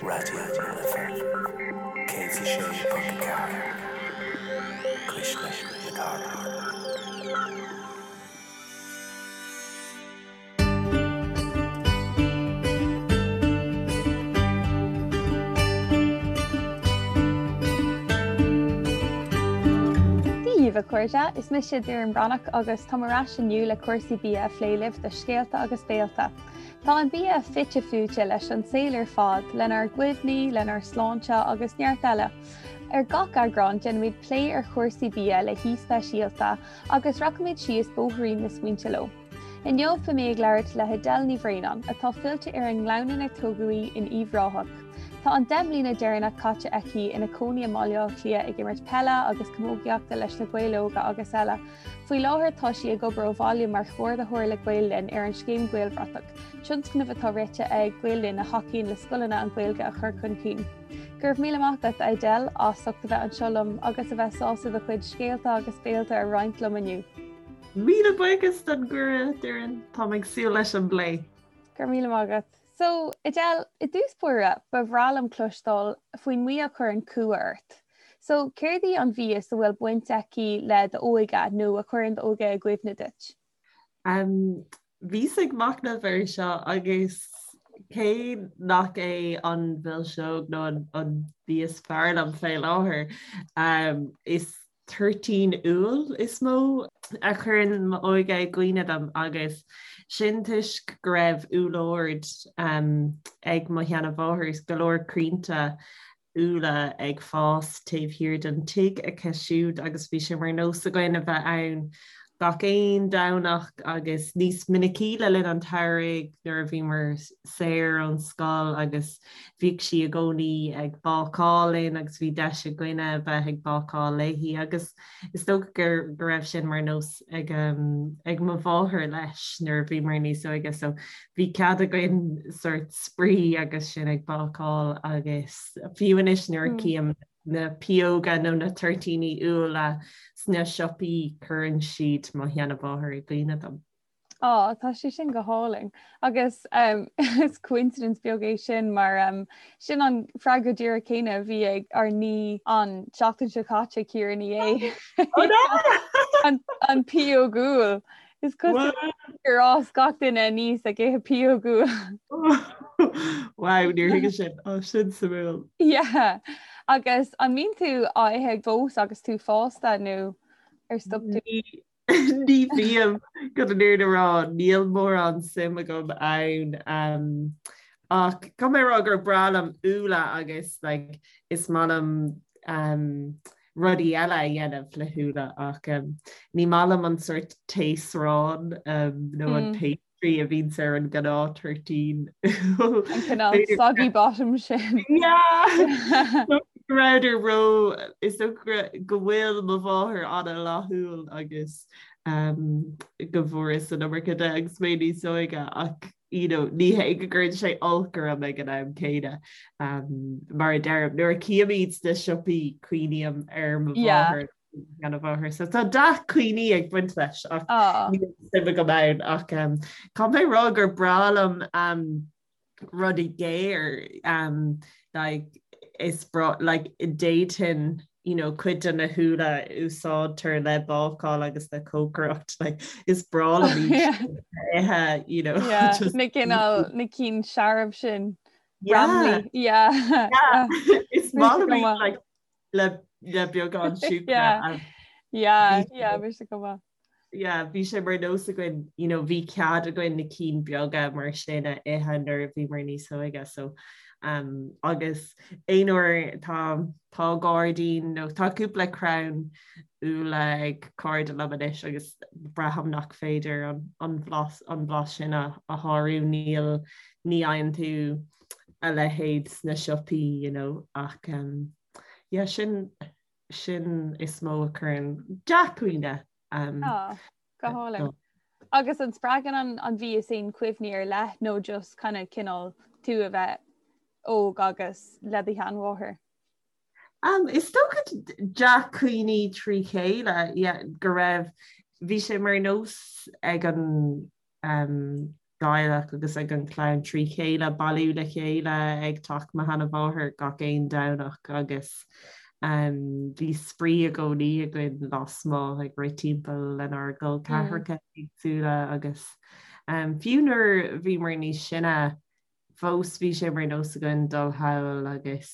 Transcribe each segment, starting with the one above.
Raidió na Life 106.4, Cuisle na Cathrach. Dia daoibh a chairde, is mise Doireann Breathnach agus táim ar ais inniu le cúrsaí bia a phlé libh do Scéalta agus Béalta. Tá an bia fite fuaite leis an saol ar fad, lenár gcuimhní, lenár sláinte agus neart eile. Ar gach eagrán déanaimid plé ar chúrsaí bia le haoi speisialta agus rachaimid síos bóithrín na smaointe leo. Inniu beidh mé ag labhairt le hAdele Ní Bhraonáin, atá fillte ar an nGleann inar tógadh í in Uíbh Ráthach. Tá an 10 mbliana deireanach caite aici ina cónaí i mBaile Átha Cliath ag imirt peile agus camógaíochta leis na Gaeil Óga agus eile. Faoi láthair tá sí ag obair ó bhaile mar chomhordaitheoir le Gael Linn ar an scéim Gaelbhratach, tionscnamh atá rite ag Gael Linn a thacaíonn le scoileanna an Ghaeilge a chur chun cinn. Go raibh míle maith agat, Adele, as ucht a bheith anseo liom agus a bheith sásta do chuid scéalta agus béalta a roinnt liom inniu. Míle buíochas don gcuireadh, Doireann. Táim ag súil leis an bplé. Go raibh míle maith agat. So, Adele, i dtús báire, ba bhreá liom cloisteáil faoin mbia a chuireann cumha ort. So, céard í an mhias a bhfuil baint aici le d'óige nó a chuireann d'óige i gcuimhne duit? Um, bhíos ag machnamh air seo agus cé nach é an mhilseog nó an, an bia is fearr liom fé láthair, um, is toirtín úll is mó a chuireann m'óige i gcuimhne dom agus sin toisc go raibh úllord ag mo sheanamháthair is go leor crainnte úlla ag fás taobh thiar den tigh aici siúd agus bhí sé mar nós againn a bheith ann gach aon Domhnach agus níos minicí le linn an tsamhraidh nuair a bhíomar saor ón scoil agus bhíodh sí i gcónaí ag bácáil linn agus bhí deis againne a bheith ag bácáil léi agus is dócha go go raibh sin mar nós ag ag mo mháthair leis nuair a bhíomar níos óige so bhí cead againn sort spraoi agus sinn ag bácáil agus fiú anois nuair a cím na pióga nó na toirtíní úlla sna siopaí cuireann siad mo sheanamháthair i gcuimhne dom. Á, tá sé sin go hálainn. Agus um, is coincidence beag é sin mar um, sin an freagra díreach céanna a bhí ag ár n-aoi an tseachtain seo caite Ciara Ní É. An, an pióg úll. Is cosúil gur fhás gach duine aníos ag ithe pióg úll. Wow, níor thuigeas sin. Ó, sin suimiúil. Yeah. Agus an mbíonn tú á ithe fós agus tú fásta nó ar stop tú? Ní bhím chun an fhírinne a rá, níl mórán suim agam ann. Ach caithfidh mé a rá gur breá liom úlla agus like, is maith liom um, rudaí eile a dhéanamh le húlla ach um, ní maith liom an sort taosrán um, nó an mm. pastry a bhíonns ar an gnáth toirtín. An cineál soggy bottom sin. Yeah! Go rabhadar ró is dócha go bhfuil mo mháthair an-fhlaithiúil agus um, go bhfuaireas an iomarca de agus mé níos óige ach you know, ní hé go gcuireann sé olc orm ag an am céanna um, mar a deirim nuair a chím iad sna siopaí cuimhním ar mo mháthair sheanmháthair. So tá dea-chuimhní ag baint leis ach ah. níl suim agam ann ach um, caithfidh mé rá gur breá liom um, rudaí géar um, like, is breá like, d'fhéadfainn you know, cuid de na húlla a úsáidtear le bácáil agus le cócaireacht like, is breá liom ithe you know, yeah, just... na cineál na cinn searbh sin. Yeah. Yeah. Yeah. Is maith liom like, le le beagán siúcra. Yeah. Yeah, yeah, bhí sé go maith. Yeah, bhí sé mar nós againn, you know, bhí cead againn na cinn beaga mar sin a ithe nuair a bhíomar níos óige, so um, agus aon uair tá tá gairdín nó tá cúpla crann úlla ag cairde liom anois agus braithim nach féidir an, an bhlas an blas sin a, a shárú níl ní fhaigheann tú a leithéid sna siopaí you know ach um, yeah, sin sin is mó a chuireann dea-chuimhne um, ah, go hálainn. Agus an spreagann an, an mhias aon chuimhní ar leith nó just kind of cineál tú a bheith óg agus le do sheanmháthair? Um, is dócha dea-chuimhní trí chéile yeah, go raibh bhí sé mar nós ag an um, dteaghlach agus ag an chlann trí chéile bailiú le chéile ag teach mo sheanamháthar gach aon Domhnach agus bhí spraoi i gcónaí againn lasmuigh ag rith timpeall lenár gcol ceathracha éagsúla agus fiú nuair a bhíomar níos sine fós bhí sé mar nós againn dul thall agus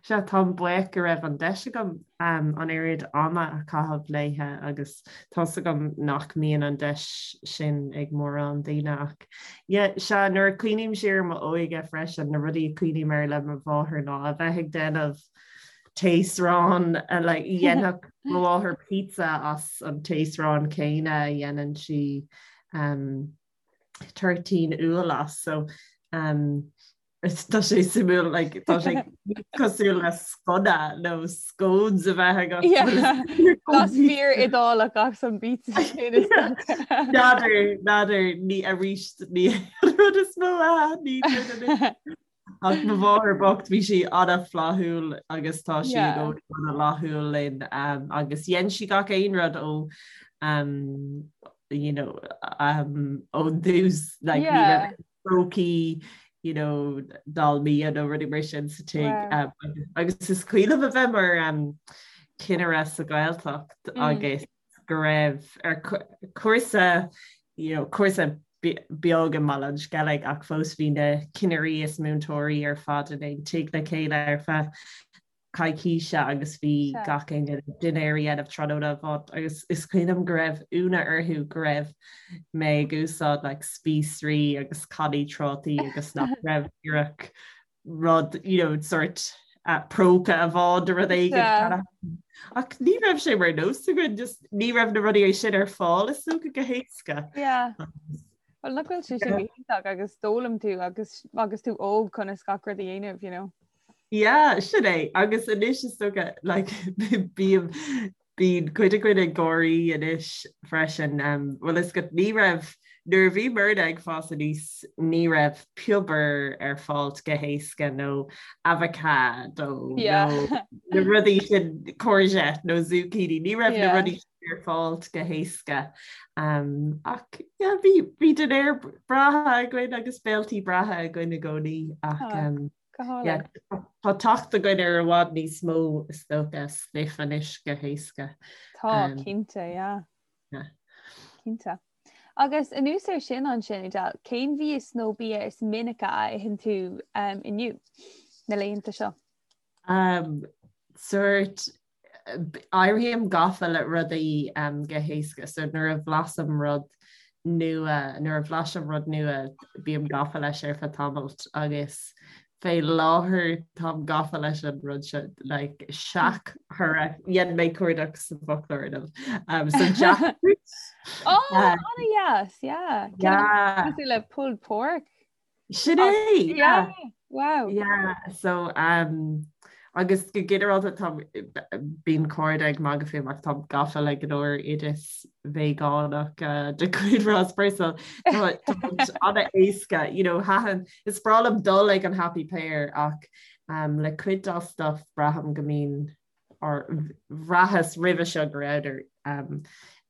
Sea, táim buíoch go raibh an deis agam an oiread ama a chaitheamh léithe agus tá's agam nach mbíonn an deis sin ag mórán daoine ach yeah, sea, nuair a cuimhním siar ar m'óige freisin, na rudaí a cuimhním air le mo mháthair ná a bheith ag déanamh taosrán, like, dhéanfadh mo mháthair pizza as an taosrán céanna a dhéanann sí um, toirtín úll as, so um, Tá sé suimiúil like, tá sé cosúil le sconna nó scones a bheith agat. Blas fíor Iodálach as an bpizza sin is dócha. N'fheadar, n'fheadar, ní arís ní rud is mó a ní Ach mo mháthair bocht bhí sí an-fhlaithiúil agus tá sí i gcónaí an-fhlaithiúil linn um, agus dhein sí gach aon rud ó um, you know, um, ón dtús like, ní raibh prócaí you know, dalmia nó rudaí mar sin sa tigh. Wow. Um, agus is cuimhin liom a bheith mar um, cinnire sa Ghaeltacht mm. agus go raibh ar cúrsa you know, cúrsa beag i mBaile an Sceilg ach fós bhí na cinnirí is múinteoirí ar fad in aon tigh le chéile ar feadh coicíse agus bhí gach éinne dinnéar a dhéanamh tráthnóna amháin agus is cuimhin liom go raibh ionadh orthu go raibh mé ag úsáid like spíosraí agus cannaí trátaí agus nach raibh díreach rud you know sort uh, próca amháin de rud éigin. Ach ní raibh sé mar nós againn just ní raibh na rudaí sin ar fáil is dócha go héasca. Yeah. Well nach bhfuil sé sin go hiontach agus d'fhoghlaim tú agus agus tú óg conas gach rud a dhéanamh, you know. Yeah, sin é. Agus anois is dócha like, bím bíonn cuid againn ag gáirí anois freisin. Um, bhfuil fhios agat ní raibh nuair a bhí muidne ag fás aníos ní raibh piobar ar fáil go héasca nó avocado Yeah. nó na rudaí sin courgette nó zucchini ní raibh na Yeah. rudaí sin ar fáil go héasca. Um, ach yeah, bhí bhí dinnéir breátha againn agus béiltí breátha againn i gcónaí ach Ah. um, Go hálainn. Tá teacht againn ar i bhfad níos mó is dócha stuif anois go héasca. Tá, cinnte, yeah. Cinnte. Agus anuas air sin ansin, Edel, cén mhias nó bia is minice a itheann tú inniu, na laethanta seo? Um, sort éirím gafa le rudaí go héasca so nuair a bhlaisim rud nua, nuair a bhlaisim rud nua bím gafa leis ar feadh tamaill agus fé láthair táim gafa leis an rud seo like seachthoradh, dhein mé cuardach sa bhfoclóir inniu. Um, so jackfruit. Oh, an-deas, yeah. Yeah. Cosúil le pulled pork. Sin é! Yeah. Wow. Yeah, so um, agus go ginearálta tá bíonn cairde ag magadh fúm ach táim gafa le go leor oideas veigeánach uh, de chuid Ross Purcell. Tá an-éasca, you know, thaitin, is breá liom dul ag an Happy Pear ach um, le cuid dá stuff braithim go mbíonn or bhraitheas roimhe seo go rabhadar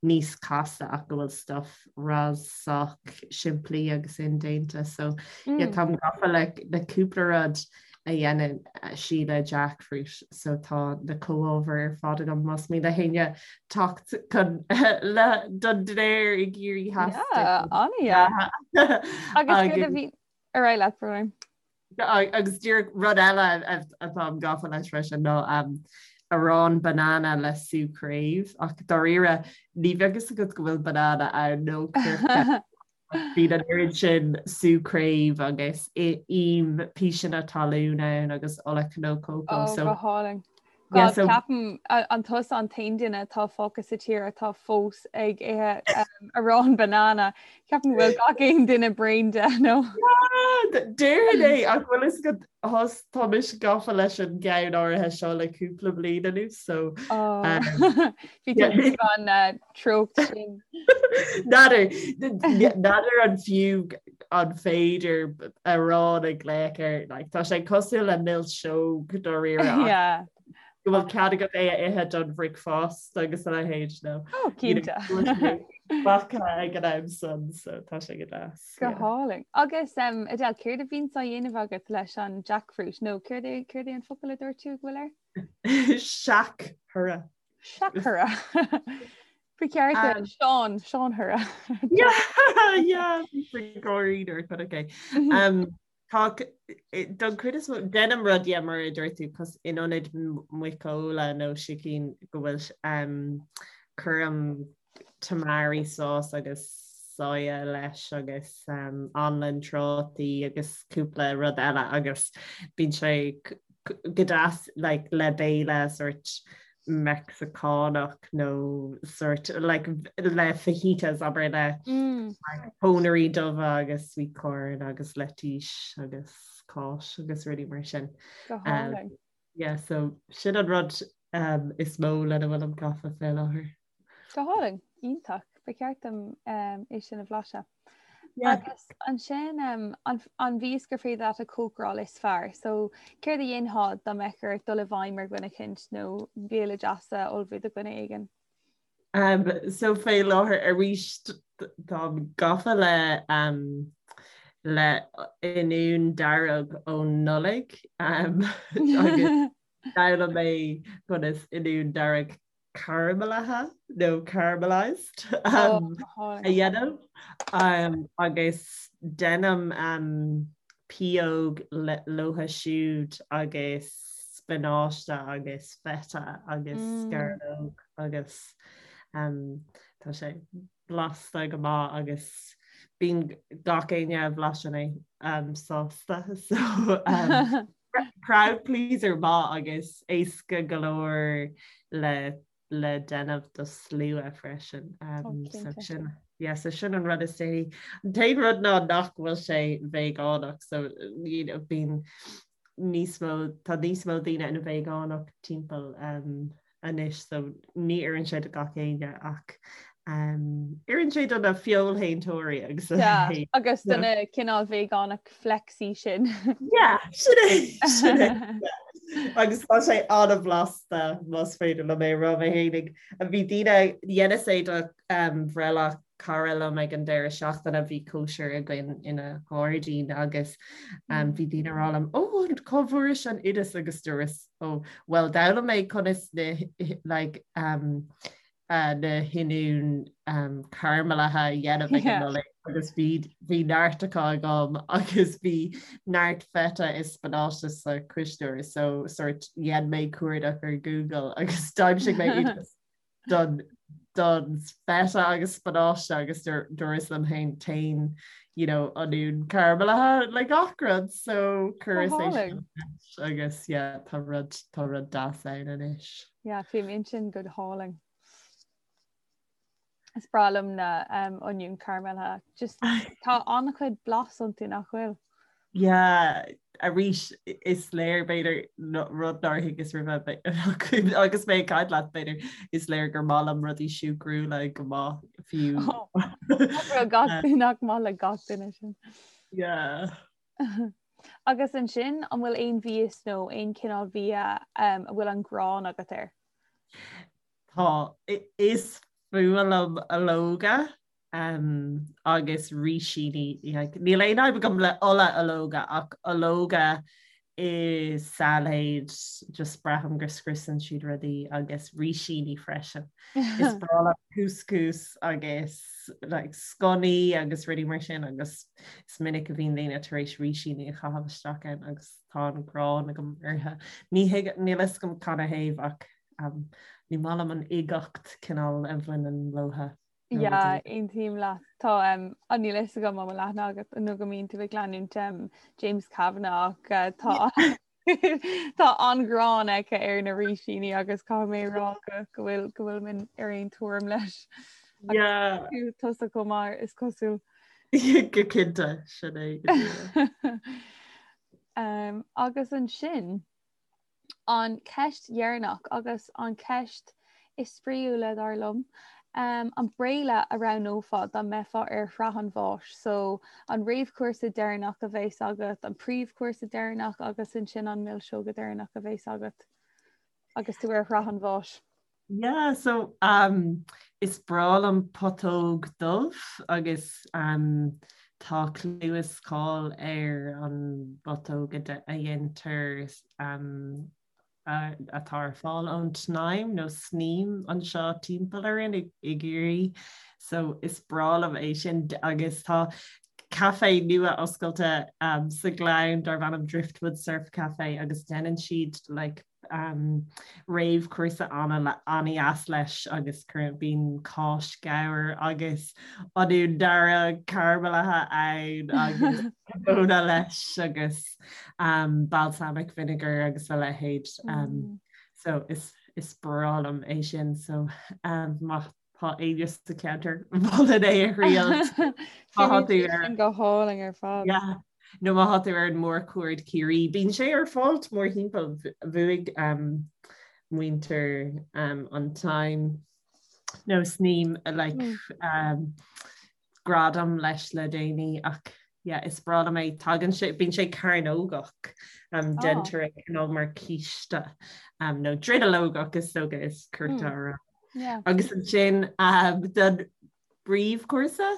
níos casta ach go bhfuil stuff Ross sách simplí agus indéanta so yeah táim gafa le le cúpla rud a dhéanann sí le jackfruit so tá na comhábhair ar fad agam más mian le héinne teacht chun le don dinnéar i gCiarraí Theas. Yeah, an-deas. Agus céard a bhí ar aghaidh leat brón? Agus díreach rud eile atáim gafa leis freisin ná arán banana le sú craobh ach dáiríre ní bheadh fhios agat go bhfuil banana ann nó coirce. Bíonn an oiread sin sú craobh agus im píseanna talún ann agus ola cnó cócó. Ó, go hálainn. God, ceapaim an tusa an t-aon duine atá fágtha sa tír atá fós ag ithe arán banana. Ceapaim go bhfuil gach aon duine bréan de nó. Déarfainn é ach bhfuil fhios agat thos tá mise gafa leis an gceann áirithe seo le cúpla bliain anuas so Bhí tú an treocht sin. N'fheadar n'fheadar an fiú an féidir arán a ghlaoch air like tá sé cosúil le milseog dáiríre Yeah. Go bhfuil cead agat é a ithe don bhricfeasta agus a leithéid nó Oh, cinnte. Bactha ag an am san so tá sé go deas. Go hálainn. Agus um, Adele, céard a bhíonns á dhéanamh agat leis an jackfruit nó céard é céard é an focal a dúirt tú go bhfuil air? Seac-thura. Seac-thura. Ba cheart um, Seán Seán Thura. Yeah, yeah, gáirí nuair a chonac é. Um, Tá don chuid is mó déanaim rud yeah mar a dúirt tú cos in ionad muiceola nó sicín go bhfuil um, cuirim tamari sauce agus soya leis agus um, anlann trátaí agus cúpla rud eile agus bíonn sé go deas like, le béile sort Meicsiceánach nó sort like, le fajitas abair le mm. like, pónairí dubha agus sweet corn agus leitís agus cáis agus rudaí mar sin. Um, yeah, so sin an rud um, is mó lena bhfuilim gafa fé láthair. Go hálainn, iontach, ba cheart dom um, é sin a bhlaiseadh. Agus ansin um, an, an mhias gur féidir leat a chócaráil is fearr. So céard a dhéanfá dá mbeadh ort dul i bhfeidhm ar dhuine eicínt nó béile deas a ullmhú do dhuine éigin? Um, so fé láthair arís táim gafa le um, le oinniún dearg ón Nollaig um, agus d'fhoghlaim mé conas oinniún dearg caramalaithe nó caramelized um, a dhéanamh um, agus déanaim um, pióg leothu siúd agus spionáiste agus feta agus mm. sceallóg agus um, tá sé blasta go maith agus bíonn gach éinne a bhlaiseann é um, sásta so um, crowd pleaser maith agus éasca go leor le le déanamh do slua freisin. Um, oh, so sin yeah, so sin an rud is déanaí. An t-aon rud ná nach bhfuil sé veigeánach so you know, bíonn níos mó tá níos mó daoine ina veigeánach timpeall um, anois so ní oireann sé do gach éinne ach um, oireann sé do na feoilshéantóirí agus yeah, agus do na cineál veigeánach flexy sin. Yeah, sin é, sin é. Agus tá sé an-bhlasta más féidir liom é a rá mé fhéinig. Bhí daoine dheineas é do um, bhreithlá cara liom ag an deireadh seachtaine bhí cóisir againn ina ghairdín agus um, bhí daoine ag rá liom ó cá bhfuairis an oideas agus dúras ó well d'fhoghlaim mé conas na like, um, uh, na hoinniúin um, caramalaithe a dhéanamh ag an Nollaig agus bhí bhí neart acu agam agus bhí neart feta is spionáiste sa chuisneoir so sort dhein mé cuardach ar Google agus d'aimsigh mé oideas don don feta agus spionáiste agus dúras liom féin téann you know oinniún caramalaithe le gach rud so chuireas é sin agus yeah tá rud tá rud deas ann anois. Yeah, fuaimníonn sin go hálainn. Is breá liom na um, oinniúin caramalaithe. Just tá an-chuid blas iontu nach bhfuil. Yeah, arís is léir b'fhéidir rud nár thuigeas roimhe agus mé ag caint leat b'fhéidir is léir gur maith liom rudaí siúcrúla go maith fiú. Nach maith le gach duine sin. Yeah. Agus ansin an bhfuil aon mhias nó aon chineál bhia um, a bhfuil an ghráin agat air? Tá is fuath liom ológa um, agus rísíní. Níl aon fhadhb agam le ola ológa ach ológa i sailéid just braithim go scriosann siad rudaí agus rísíní freisin. Is breá liom couscous agus like, sconnaí agus rudaí mar sin agus is minic a bhíonn daoine tar éis rísíní a chaitheamh isteach ann agus tá an ghráin agam orthu. Ní níl a fhios agam canathaobh ach um, ní maith liom an uigeacht cineál a bhaineann leothu. Yeah, aontaím leat. Tá um, an níl a fhios agam an bhfuil aithne agat nó go mbíonn tú ag leanúint um, James Kavanagh ach uh, tá tá an-ghráin aici ar na rísíní agus caithfidh mé rá go go bhfuil go bhfuil mé ar aon tuairim leis. Yeah. Tusa chomh maith is cosúil. Go cinnte sin é go díreach. um, agus ansin An cheist dheireanach agus an cheist is spraíúla, dar liom, an béile a roghnófá dá mbeifeá ar shraith an bháis? So, an réamhchúrsa deireanach a bheas agat, an príomhchúrsa deireanach agus ansin an milseog deireanach a bheas agat? Agus tú ar shraith an bháis. Yeah, so um, is breá liom putóg dubh agus um, tá clú is cáil ar an bputóg a dhéantar um, atá ar fáil ón tSnaidhm nó Sneem anseo timpeall orainn i gCiarraí. So is breá liom é sin agus tá caife nua oscailte um, sa Ghleann darb ainm Driftwood Surf Cafe agus déanann siad like, um, réamhchúrsa an-dheas leis agus cuireann bíonn cáis ghabhair agus oinniún dearg caramalithe ann agus móna leis agus um, balsamic vinegar agus a leithéid. Um, mm. So is, is breá liom é sin so um, má tá éinne sa cheantar mholfainn é a thriail. Go hálainn ar fad. Yeah. Nó má tá tú ar an mórchuaird Ciarraí, bíonn sé ar fáil mórthimpeall bhuaigh um, muintir um, an tSnaidhm nó Sneem like, mm. um, gradam leis le déanaí ach yeah, is breá liom é tagann sé bíonn sé cearnógach um, oh. déantar é cineál mar císte um, nó dronuilleogach is dócha is cirte mm. a rá. Yeah. Agus ansin um, don bpríomhchúrsa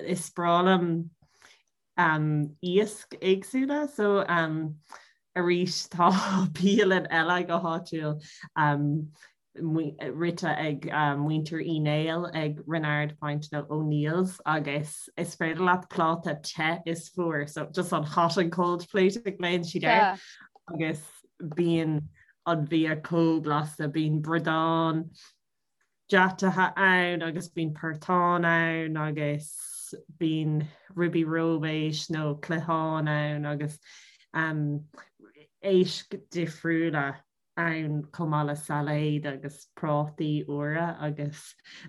is breá liom um, iasc éagsúla so um, arís tá bialann eile go háitiúil um, rite ag muintir Uí Néill ag Reenard Point nó O'Neill's agus is féidir leat pláta te is fuar, so just an hot and cold plate a ghlaonn siad air agus bíonn an bia chomh blasta, bíonn bradán deataithe ann agus bíonn portán ann agus bíonn ribí róibéis nó cliathán ann agus um, éisc difriúla. ann chomh maith le sailéad agus prátaí úra agus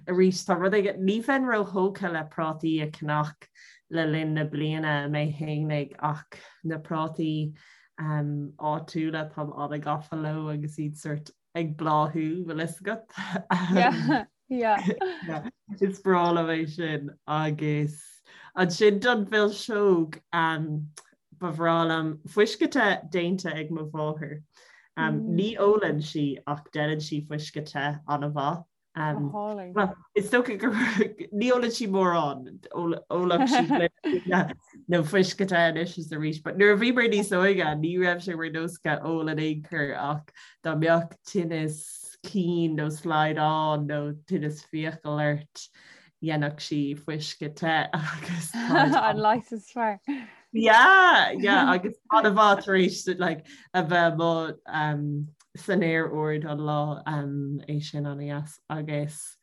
arís tá rud éigin, ní bheinn róthógtha le prátaí a cheannach le linn na bliana mé fhéinig ach na prátaí um, áitiúla táim an-gafa leo agus iad sort ag bláthú bhfuil fhios agat. Yeah. Yeah. Is breá liom é sin agus ansin don mhilseog um, ba bhreá liom fuisce te déanta ag mo mháthair. Um, mm. Ní ólann sí ach déanann sí fuisce te an-mhaith. Um, well, is dócha gur ní ólann sí mórán ólann sí nó fuisce te anois is arís, but nuair a bhíomar níos óige ní raibh sé mar nós aici ól in aon chor ach dá mbeadh tinneas cinn nó slaghdán nó tinneas fiacal ort, dhéanfadh sí fuisce te agus an leigheas is fearr. Yeah, yeah, agus an-mhaith tar éis like, a bheith amuigh um, san aer ard an lá um, é sin an-deas agus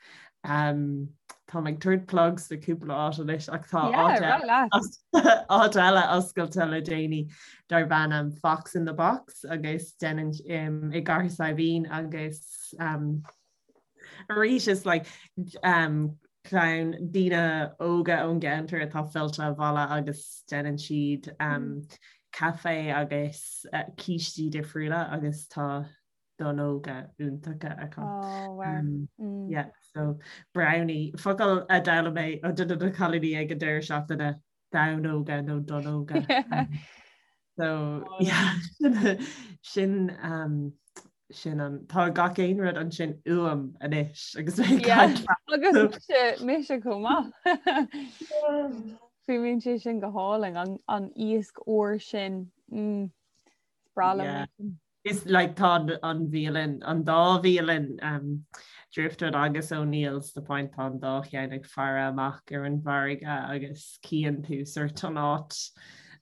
um, Tá ag tabhairt plugs do cúpla áit anois ach tá áit eile oscailte le déanaí darb ainm Fox in the Box agus déanann um, i gCathair Saidhbhín agus um, arís is like, um, clann daoine óga ón gceantar atá fillte abhaile agus déanann siad um, mm. caife agus uh, cístí difriúla agus tá donnóga iontacha acu. Oh, wow. Um, mm. Yeah, so brownie focal a d'fhoghlaim mé ó duine de na cailíní ag an deireadh seachtaine damhnóga nó donnóga. Um, so oh, yeah, sin um, sin an tá gach aon rud ansin uaim anois agus agus mise chomh maith. Fuaimníonn sé sin go hálainn an, an iasc úr sin. Mm. Breá liom. Yeah. Is like tá an bhialann, an dá bhialann um, Driftwood agus O'Neill's the Point tá an dá cheann ag faire amach ar an bhfarraige agus cíonn tú sort an áit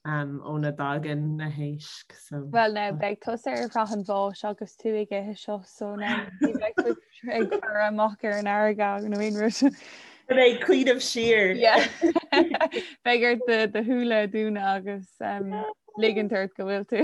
um, óna dtagann na héisc. So, Well now beidh tusa ar shraith an bháis agus tú ag ithe seo so now ní bheidh tú ag faire amach ar an fharraige nó aon rud. Beidh cuimhneamh siar. Yeah. Beidh ort do do shúile a dhúnadh agus um, ligint ort go bhfuil tú.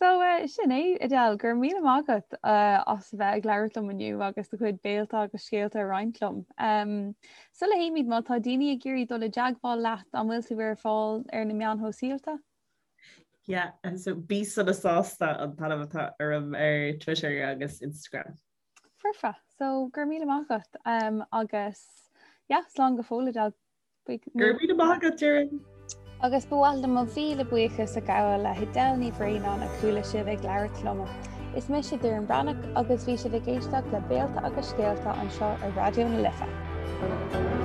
So uh, sin é Adele, go raibh míle maith agat uh, as a bheith ag labhairt liom inniu agus do chuid béalta agus scéalta a roinnt liom. Um, sula théimid má tá daoine ag iarraidh dul i dteagmháil leat an bhfuil tú ar fáil ar na meáin shóisialta? Yeah, and so bí sona sásta an t-ainm atá orm ar Twitter agus Instagram. Foirfe, so go raibh míle maith agat um, agus yeah, slán go fóill Adele. Go raibh míle maith agat, Doireann. Agus ba mhaith liom mo mhíle buíochas a ghabháil le hAdele Ní Bhraonáin a chuala sibh ag labhairt liom. Is mise Doireann Breathnach agus bhí sibh ag éisteacht le Béalta agus Scéalta anseo ar Raidió na Life.